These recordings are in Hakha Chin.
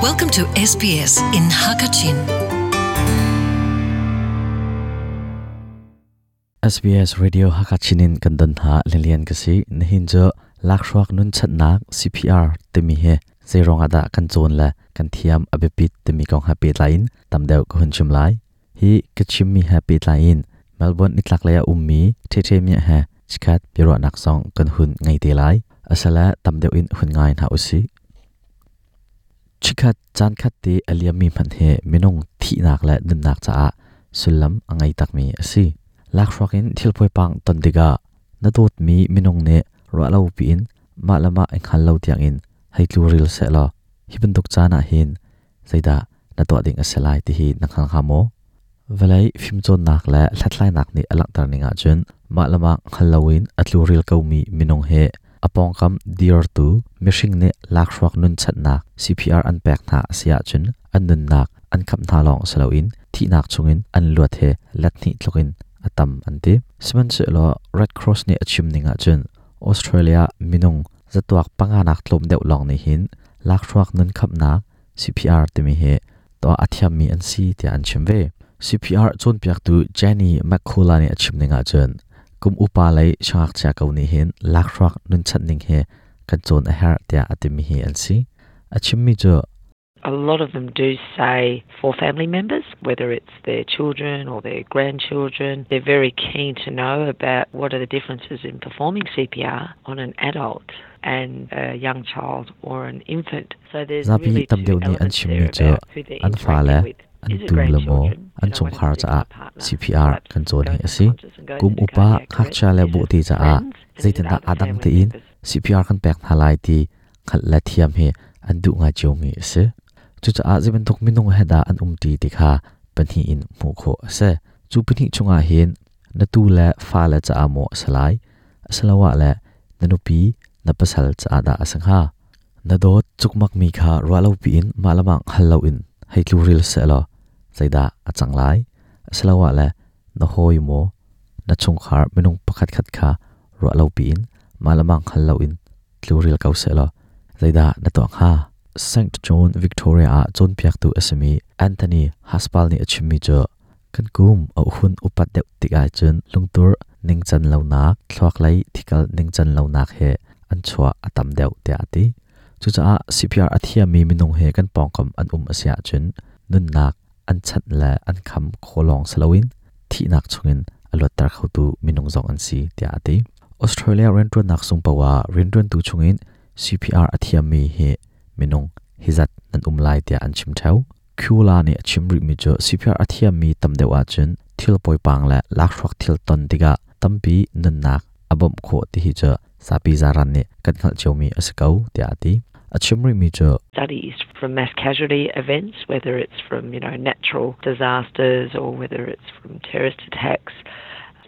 Welcome to SBS in Hakachin. SBS Radio Hakachin in kan don hna lilian ka si nihin cu lakhruak nun channak CPR timi he zeiruang ah dah kan cawn le kan thiam a biapit timi kong he pehtlai in tam deuh ka hun chim lai. Hi ka chimmi he pehtlai in Melbourne nitlaklei ah ummi Ṭheṭhe Miah he chikkhat biaruahnak zong kan hun ngei te lai. Asile tam deuh in hun ngai hna usih. Chikkhat caan khat te a liammi hmanh hi minung thihnak le nunnak caah sullam a ngei takmi a si. Lakhruak in thil poipang ton tikah na dawtmi minung nih ruahlo piin mah le mah i hngal lo tiangin hei tluril sehlaw hi bantuk caan ah hin zeidah na tuah ding a si lai ti hi na hngal hnga maw? Vawlei fimcawnnak le hlathlainak nih a langhter ning ahcun mah le mah hngal loin a tluril komi minung hi a pawngkam dirtu mihring nih lakhruak nunchanhnak CPR an pek hna a si ahcun an nunnak an khamh hna lawng si loin thihnak chungin an luat hi let hnih tlukin a tam an ti. Sihmanhsehlaw Red Cross nih a chim ning ahcun Australia minung zatuak panganak tlawm deuh lawng nih hin lakhruak nun khamhnak CPR timi hi tuah a thiammi an si tiah an chim ve. CPR cawnpiaktu Jenny McCullough nih a chim ning ahcun kum upa lei siangngakchia ko nih hin lakhruak nunchanh ning hi kan cawn a herh tiah a timi hi an si. A chimmi cu A lot of them do say for family members, whether it's their children or their grandchildren, they're very keen to know about what are the differences in performing CPR on an adult and a young child or an infant. So there's Zapi really tam two deuh nih an elements chimmi there cu about who they're an fale, interacting with. an Is it tu le maw, grandchildren? an You know, one chungkhar in caah particular partner CPR perhaps kan cawn hi goes a si. unconscious and goes Kum into upa cardiac arrest. ngakchia le Is it bawhte caah friends? And is it zeitindah other aa dang family tein members? CPR kan pek hna lai ti hngalh le thiam hi an duh ngai ciomi a si. Cucaah zei bantuk minung he dah an umṭi ti kha pahnih in hmuh khawh a si. Cu pahnih chungah hin na tu le fale caah maw a si lai, asiloah le na nupi, na pasal caah dah a si hnga? Na dawt cukmakmi kha ruahlopi in mah le mah hngal loin hei tluril sehlaw zeidah a cang lai? Asiloah le na hawi maw, na chungkhar minung pakhatkhat kha ruahlopi in mah le mah hngal loin tluril ko sehlaw zeidah na tuah hnga? St. John Victoria ah cawnpiaktu a simi Anthony Haspal nih a chimmi cu kan kum a hun upat deuh tik ahcun lungtur ningcan lonak, thluaklei thikal ningcan lonak he an chuah a tam deuh tiah a ti. Cucaah CPR a thiammi minung he kan pawngkam an um a si ahcun nunnak an chanh le an kham khawh lawng si loin thihnak chungin a luatter khotu minung zong an si tiah a ti. Australia rianṭuannak sung paoh ah rianṭuantu chungin CPR a thiammi hi minung hi zat nan um lai tiah an chim ṭheo. Kula nih a chim rihmi cu CPR a thiammi tam deuh ahcun thil poipang le lakhruak thil ton tikah tampi nunnak a bawmh khawh ti hi cu zapi zaran nih kan hngalh ciomi a si ko tiah a ti. A chim rihmi cu studies from mass casualty events, whether it's from you know natural disasters or whether it's from terrorist attacks.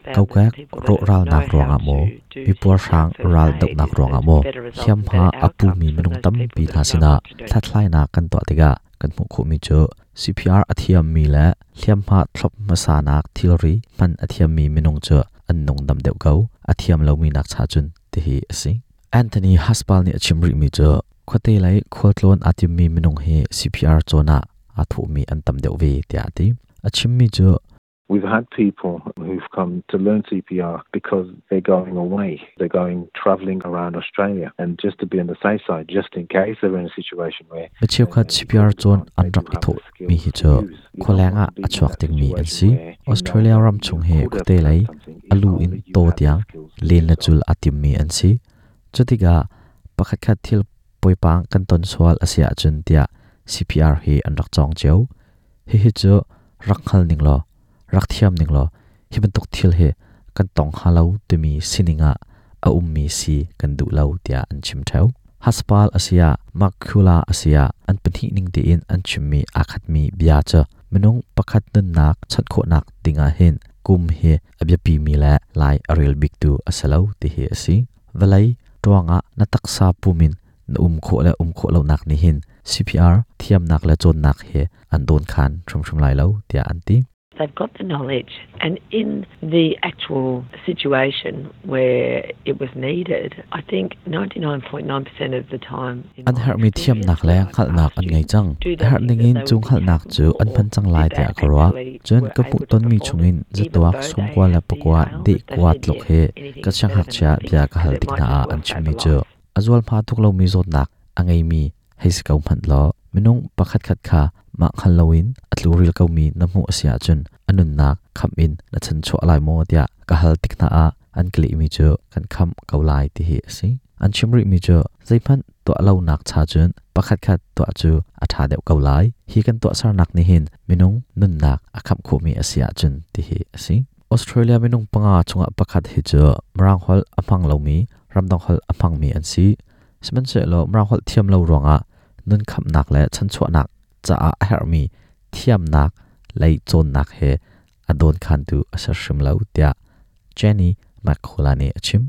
Kokek rawhralnak ruangah maw, mipuarhrang raldohnak ruangah maw, hliamhma a pumi minung tampi hna sinah hlathlainak kan tuah tikah kan hmuh khawhmi cu CPR a thiammi le hliamhma thlop hmasanak thilri hman a thiammi minung cu an nungdam deuh ko, a thiam lomi nak cha cun tihi a si. Anthony Haspal nih a chim rihmi cu khuate lei khualtlawn aa timmi minung hi CPR cawn ah aa thawhmi an tam deuh ve tiah a ti. A chimmi cu We've had people who've come to learn CPR because they're going away. They're going traveling around Australia. And just to be on the safe side, just in case they're in a situation where Mi cheukhat CPR cawn an rak i thawhmi hi cu khualeng ah a chuak dingmi an si. Australia ram chung hi khuate lei a lu in taw tiang len le cul aa timmi an si. Cutikah pakhatkhat thil poipang kan ton sual a si ahcun tiah CPR hi an rak cawng cio. Hihi cu rak hngal ning law, rak thiam ning law hi bantuk thil hi kan tong hnga lo timi sining ah a ummi si kan duh lo tiah an chim ṭheo. Haspal a si ah Makula a si ah an pahnih ning tein an chimmi aa khatmi bia cu minung pakhat nunnak chanh khawhnak ding ah hin kum hi a biapimi le lai a rel biktu a si lo ti hi a si. Vawlei ṭuang ah na taksa pum in na um khawh le um khawh lonak nih hin CPR thiamnak le cawnnak hi an dawnkhan hrimhrim lai lo tiah an ti. They've got the knowledge and in the actual situation where it was needed, I think 99.9% of the time An herhmi thiamnak le hngalhnak an ngei cang. A herh ningin cu hngalhnak cu an hman cang lai tiah ka ruah. Cun ka hmuh tonmi chungin zatuak 99 deh kua tluk hi ka siangngakchia bia ka hal tik hna ah an chimmi cu a zualhma tuk lomi zawtnak a ngeimi hei si ko hmanh law minung pakhatkhat kha mah hngal loin a tluril komi na hmuh a si ahcun a nunnak khamh in na chanchuah lai maw tiah ka hal tik hna ah an ka lehmi cu kan khamh ko lai ti hi a si. An chim rihmi cu zeihmanh tuah lonak cha cun pakhatkhat tuah cu a ṭha deuh ko lai. Hi kan tuahsernak nih hin minung nunnak a khamh khawhmi a si ahcun ti hi a si. Australia minung panga chungah pakhat hi cu Mirang holh a hmang lomi, ramdang holh a hmangmi an si. Sihmanhsehlaw Mirang holh thiam lo ruangah nun khamhnak le chanchuahnak caah a herhmi thiamnak lei cawnnak he a dawnkhantu a si hrim lo tiah Jenny McCullough nih a chim.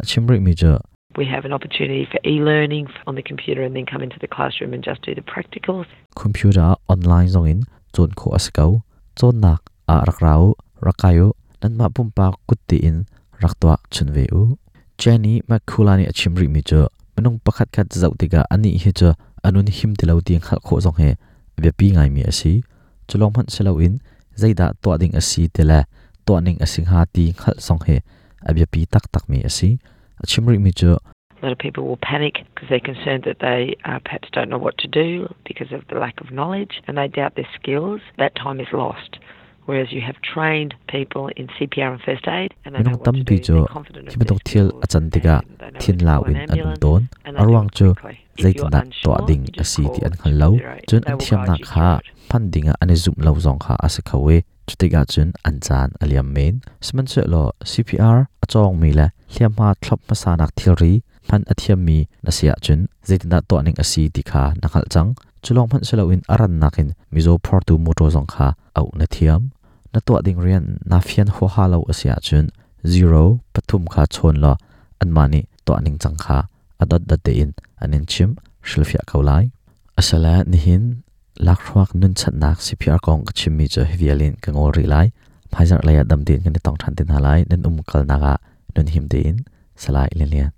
A chim rihmi cu We have an opportunity for e-learning on the computer and then come into the classroom and just do the practicals. Computer online zongin cawn khawh a si ko. Cawnnak ah rak ra u, rak kai u, nanmah pumpak kut tein rak tuah chun ve u. Jenny McCullough nih a chim rihmi cu minung pakhat khat zoh tikah anih hi cu a nun him ti lo ti hngalh khawh zong hi a biapi ngaimi a si. Cu lawng hmanh si loin zeidah tuah ding a si ti le tuah ning a si hnga ti hngalh zong hi a biapi taktakmi a si. A chim rihmi cu A lot of people will panic because they're concerned that they perhaps don't know what to do because of the lack of knowledge and they doubt their skills. That time is lost. Whereas you have trained people in CPR and first aid and they know Minung what to tampi do. cu They're confident hi of their bantuk thil skills a can tikah and they know thin when to lau call an in an um ambulance tawn. and A they do ruang it cu quickly. If you're zeitindah tuah unsure, ding you a just si ti call an hngal lo. 000. Cun They an will guide thiamnak you kha through it. hman dingah an i zumh lo zong kha a si kho i cutikah cun an caan a liam men. Sihmanhsehlaw CPR a cawngmi le hliamhma thlop hmasanak thilri hman a thiammi na si ahcun zeitindah tuah ning a si ti kha na hngalh cang. Cu lawng hmanh si loin a rannak in mizaw phortu mawṭaw zong kha auh na thiam. Na tuah ding rian naa fian huaha lo a si ahcun zero pathum kha chawn law anmah nih tuah ningcang kha a dotdot tein an in chimh hrilhfiah ko lai. Asile nihin lakhruak nunchanhnak CPR kong ka chimmi cu hi vial in ka ngol rih lai. Hmaizarh lei ah dam tein kan i tong ṭhan te hna lai. Nan um kalnak ah nun him tein Salai Lian Lian.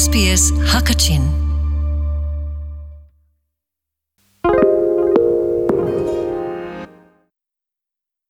SBS Hakachin.